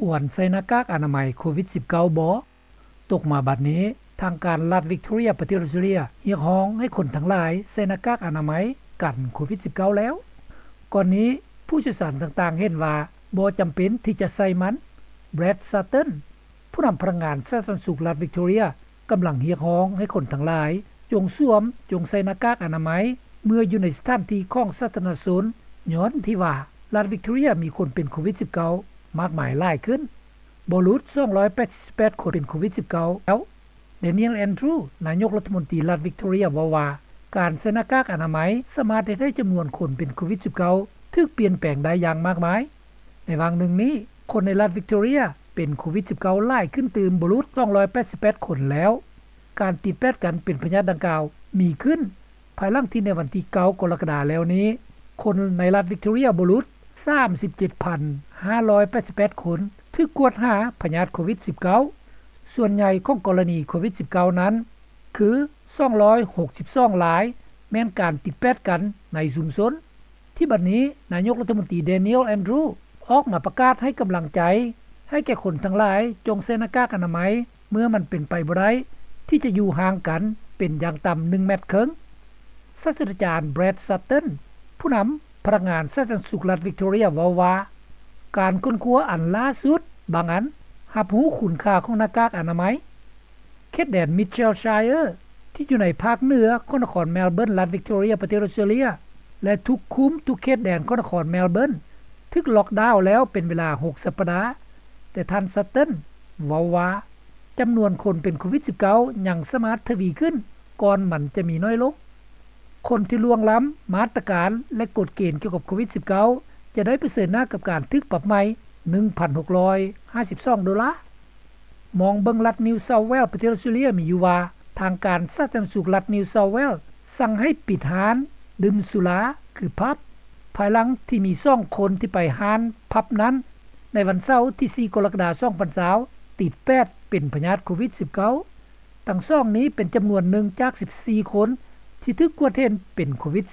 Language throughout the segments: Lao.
ຄວນໃສ່ໜ້າກາກອະນາໄມໂຄວິດ-19 ບໍ່? ຕົກມາບັດນີ້, ທາງການລັດວິກຕໍເຣຍ ປະເທດອົດສະຕຣາເລຍ ຮຽກຮ້ອງໃຫ້ຄົນທັງຫຼາຍໃສ່ໜ້າກາກອະນາໄມກັນໂຄວິດ-19 ແລ້ວ. ກ່ອນນີ້, ຜູ້ຊ່ຽວຊານຕ່າງໆເຫັນວ່າບໍ່ຈຳເປັນທີ່ຈະໃສ່ມັນ. ແບຣດ ຊາເຕີນ ຜູ້ນຳພະນັກງານສາທາລະນະສຸກລັດວິກຕໍເຣຍ ກຳລັງຮຽກຮ້ອງໃຫ້ຄົນທັງຫຼາຍ ຈົ່ງສວມ, ຈົ່ງໃສ່ໜ້າກາກອະນາໄມ ເມື່ອຢູ່ໃນສະຖານທີ່ຂອງສາທາລະນະຊົນ, ຍ້ອນທີ່ວ່າລັດວິກຕໍເຣຍມີຄົນເປັນໂຄວິດ-19 ມາກມາຍຫຼາຍຂຶ້ນ, ບໍ່ຫຼຸດ ສອງຮ້ອຍແປດສິບແປດຄົນເປັນໂຄວິດ-19 ແລ້ວ. ແດນຽວ ແອນດຣູ ນາຍົກລັດຖະມົນຕີລັດວິກຕໍເຣຍ ເວົ້າວ່າ ການໃສ່ໜ້າກາກອະນາໄມສາມາດເຮັດໃຫ້ຈຳນວນຄົນເປັນໂຄວິດ-19 ຖືກປ່ຽນແປງໄດ້ຢ່າງມາກມາຍ. ໃນຫວ່າງໜຶ່ງນີ້, ຄົນໃນລັດວິກຕໍເຣຍເປັນໂຄວິດ-19 ຫຼາຍຂຶ້ນຕື່ມ ບໍ່ຫຼຸດ ສອງຮ້ອຍແປດສິບແປດຄົນແລ້ວ. ການຕິດແປດກັນເປັນພະຍາດດັ່ງກ່າວມີຂຶ້ນ ພາຍຫຼັງທີ່ໃນວັນທີເກົ້າ ກໍລະກະດາແລ້ວນີ້, ຄົນໃນລັດວິກຕໍເຣຍ ບໍ່ຫຼຸດ ສາມສິບເຈັດພັນຫ້າຮ້ອຍແປດສິບແປດຄົນ ຖືກກວດຫາພະຍາດໂຄວິດ-19. ສ່ວນໃຫຍ່ຂອງກໍລະນີໂຄວິດ-19 ນັ້ນ ຄື ສອງຮ້ອຍຫົກສິບສອງລາຍ ແມ່ນການຕິດແປດກັນໃນຊຸມຊົນ. ທີ່ບັດນີ້, ນາຍົກລັດຖະມົນຕີ ແດນຽວ ແອນດຣູ ອອກມາປະກາດໃຫ້ກຳລັງໃຈໃຫ້ແກ່ຄົນທັງຫຼາຍ ຈົ່ງໃສ່ໜ້າກາກອະນາໄມ ເມື່ອມັນເປັນໄປບໍ່ໄດ້ທີ່ຈະຢູ່ຫ່າງກັນເປັນຢ່າງຕ່ຳໜຶ່ງແມັດເຄິ່ງ. ສາດສະດາຈານ ແບຣດ ຊາເຕີນ ຜູ້ນຳພະນັກງານສາທາລະນະສຸກລັດວິກຕໍເຣຍ ເວົ້າວ່າ ການຄົ້ນຄວ້າອັນລ່າສຸດບາງອັນ ຮັບຮູ້ຄຸນຄ່າຂອງໜ້າກາກອະນາໄມ. ເຂດແດນ ມິດເຊລຊາຍເອີ ທີ່ຢູ່ໃນພາກເໜືອຂອງນະຄອນແມລເບີນ ລັດວິກຕໍເຣຍ ປະເທດອົດສະຕຣາເລຍ ແລະ ທຸກຄຸ້ມທຸກເຂດແດນຂອງນະຄອນແມລເບີນ ຖືກລັອກດາວແລ້ວເປັນເວລາຫົກສັບປະດາ, ແຕ່ທ່ານ ຊາເຕີນ ເວົ້າວ່າ ຈຳນວນຄົນເປັນໂຄວິດ-19 ຍັງສາມາດທະວີຂຶ້ນ ກ່ອນມັນຈະມີໜ້ອຍລົງ. ຄົນທີ່ລ່ວງລ້ຳມາດຕະການ ແລະ ກົດເກນກ່ຽວກັບໂຄວິດ-19 ຈະໄດ້ປະເຊີນໜ້າກັບການຖືກປັບໃໝ ໜຶ່ງພັນຫົກຮ້ອຍຫ້າສິບສອງໂດລາ. ມອງເບິ່ງລັດນິວເຊົາເວລ ປະເທດອົດສະຕຣາເລຍ ມີຢູ່ວ່າ ທາງການສາທາລະນະສຸກລັດນິວເຊົາເວລ ສັ່ງໃຫ້ປິດຮ້ານດື່ມສຸລາ ຄື ຜັບ ພາຍຫຼັງທີ່ມີສອງຄົນທີ່ໄປຮ້ານຜັບນັ້ນ ໃນວັນເສົາທີສີ່ ກໍລະກະດາ ສອງພັນຊາວ ຕິດແປດເປັນພະຍາດໂຄວິດ-19. ທັງສອງນີ້ເປັນຈຳນວນໜຶ່ງຈາກສິບສີ່ຄົນທີ່ຖືກກວດເຫັນເປັນໂຄວິດ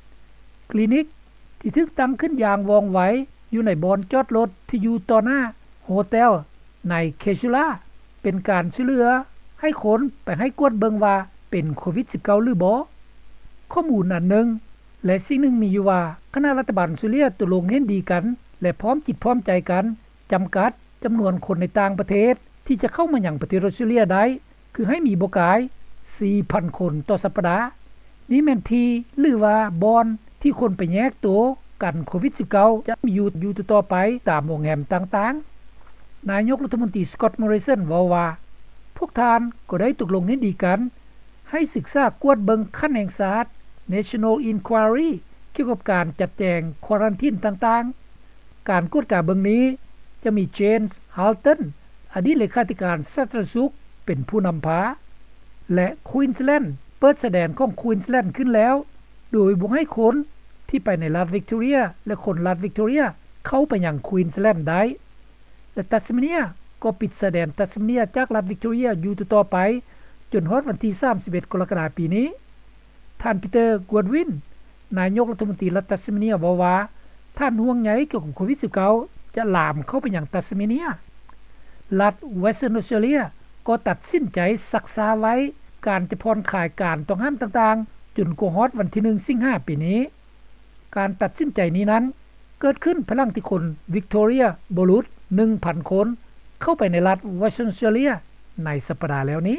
-19. ຄລີນິກທີ່ຖືກຕັ້ງຂຶ້ນຢ່າງວ່ອງໄວຢູ່ໃນບ່ອນຈອດລົດທີ່ຢູ່ຕໍ່ໜ້າໂຮເຕັລໃນເຄຊູລາ ເປັນການຊ່ວຍເຫຼືອໃຫ້ຄົນໄປໃຫ້ກວດເບິ່ງວ່າເປັນໂຄວິດ-19 ຫຼືບໍ່. ຂໍ້ມູນອັນໜຶ່ງ ແລະ ສິ່ງໜຶ່ງມີຢູ່ວ່າ ຄະນະລັດຖະບານອົດສະຕຣາເລຍຕົກລົງເຫັນດີກັນ ແລະ ພ້ອມຈິດພ້ອມໃຈກັນ ຈຳກັດຈຳນວນຄົນໃນຕ່າງປະເທດທີ່ຈະເຂົ້າມາຍັງປະເທດອົດສະຕຣາເລຍໄດ້ ຄືໃຫ້ມີບໍ່ກາຍສີ່ພັນຄົນຕໍ່ສັບປະດາ. ນີ້ແມ່ນທີ່ ຫຼືວ່າບ່ອນທີ່ຄົນໄປແຍກໂຕກັນໂຄວິດ-19 ຈະມີຢູ່ ຢູ່ຕໍ່ໆໄປຕາມໂຮງແຮມຕ່າງໆ. ນາຍົກລັດຖະມົນຕີ ສະກອດ ມໍຣິສັນ ເວົ້າວ່າ ພວກທ່ານກໍໄດ້ຕົກລົງເຫັນດີກັນ ໃຫ້ສຶກສາກວດເບິ່ງຂັ້ນແຫ່ງຊາດ National Inquiry ກ່ຽວກັບການຈັດແຈງຄວາຣັນທີນຕ່າງໆ. ການກວດກາເບິ່ງນີ້ຈະມີ ເຈມສ໌ ຮາວຕັນ ອະດີດເລຂາທິການສາທາລະນະສຸກ ເປັນຜູ້ນຳພາ ແລະ ຄວີນສ໌ແລນ ເປີດຊາຍແດນຂອງຄວີນສ໌ແລນຂຶ້ນແລ້ວ ໂດຍບໍ່ໃຫ້ຄົນທີ່ໄປໃນລັດວິກຕໍເຣຍ ແລະ ຄົນລັດວິກຕໍເຣຍ ເຂົ້າໄປຍັງຄວີນສ໌ແລນໄດ້. ແລະ ຕັດສະເມເນຍ ກໍປິດຊາຍແດນຕັດສະເມເນຍຈາກລັດວິກຕໍເຣຍຢູ່ຕໍ່ໆໄປ ຈົນຮອດວັນທີສາມສິບເອັດ ກໍລະກະດາປີນີ້. ທ່ານ ປີເຕີ ກວດວິນ ນາຍົກລັດຖະມົນຕີລັດຕັດສະເມເນຍ ເວົ້າວ່າ ທ່ານຫ່ວງໃຍກ່ຽວກັບໂຄວິດ-19 ຈະລາມເຂົ້າໄປຍັງຕັດສະເມເນຍ. ລັດ ເວສເທີນ ອົດສະຕຣາເລຍ ກໍຕັດສິນໃຈຊັກຊ້າໄວ້ການຈະຜ່ອນຄາຍການຕ້ອງຫ້າມຕ່າງໆ ຈົນກວ່າຮອດວັນທີໜຶ່ງ ສິງຫາປີນີ້. ການຕັດສິນໃຈນີ້ນັ້ນ ເກີດຂຶ້ນພາຍຫຼັງທີ່ຄົນວິກຕໍເຣຍ ບໍ່ຫຼຸດໜຶ່ງພັນຄົນ ເຂົ້າໄປໃນລັດ ເວສເທີນ ອົດສະຕຣາເລຍ ໃນສັບປະດາແລ້ວນີ້.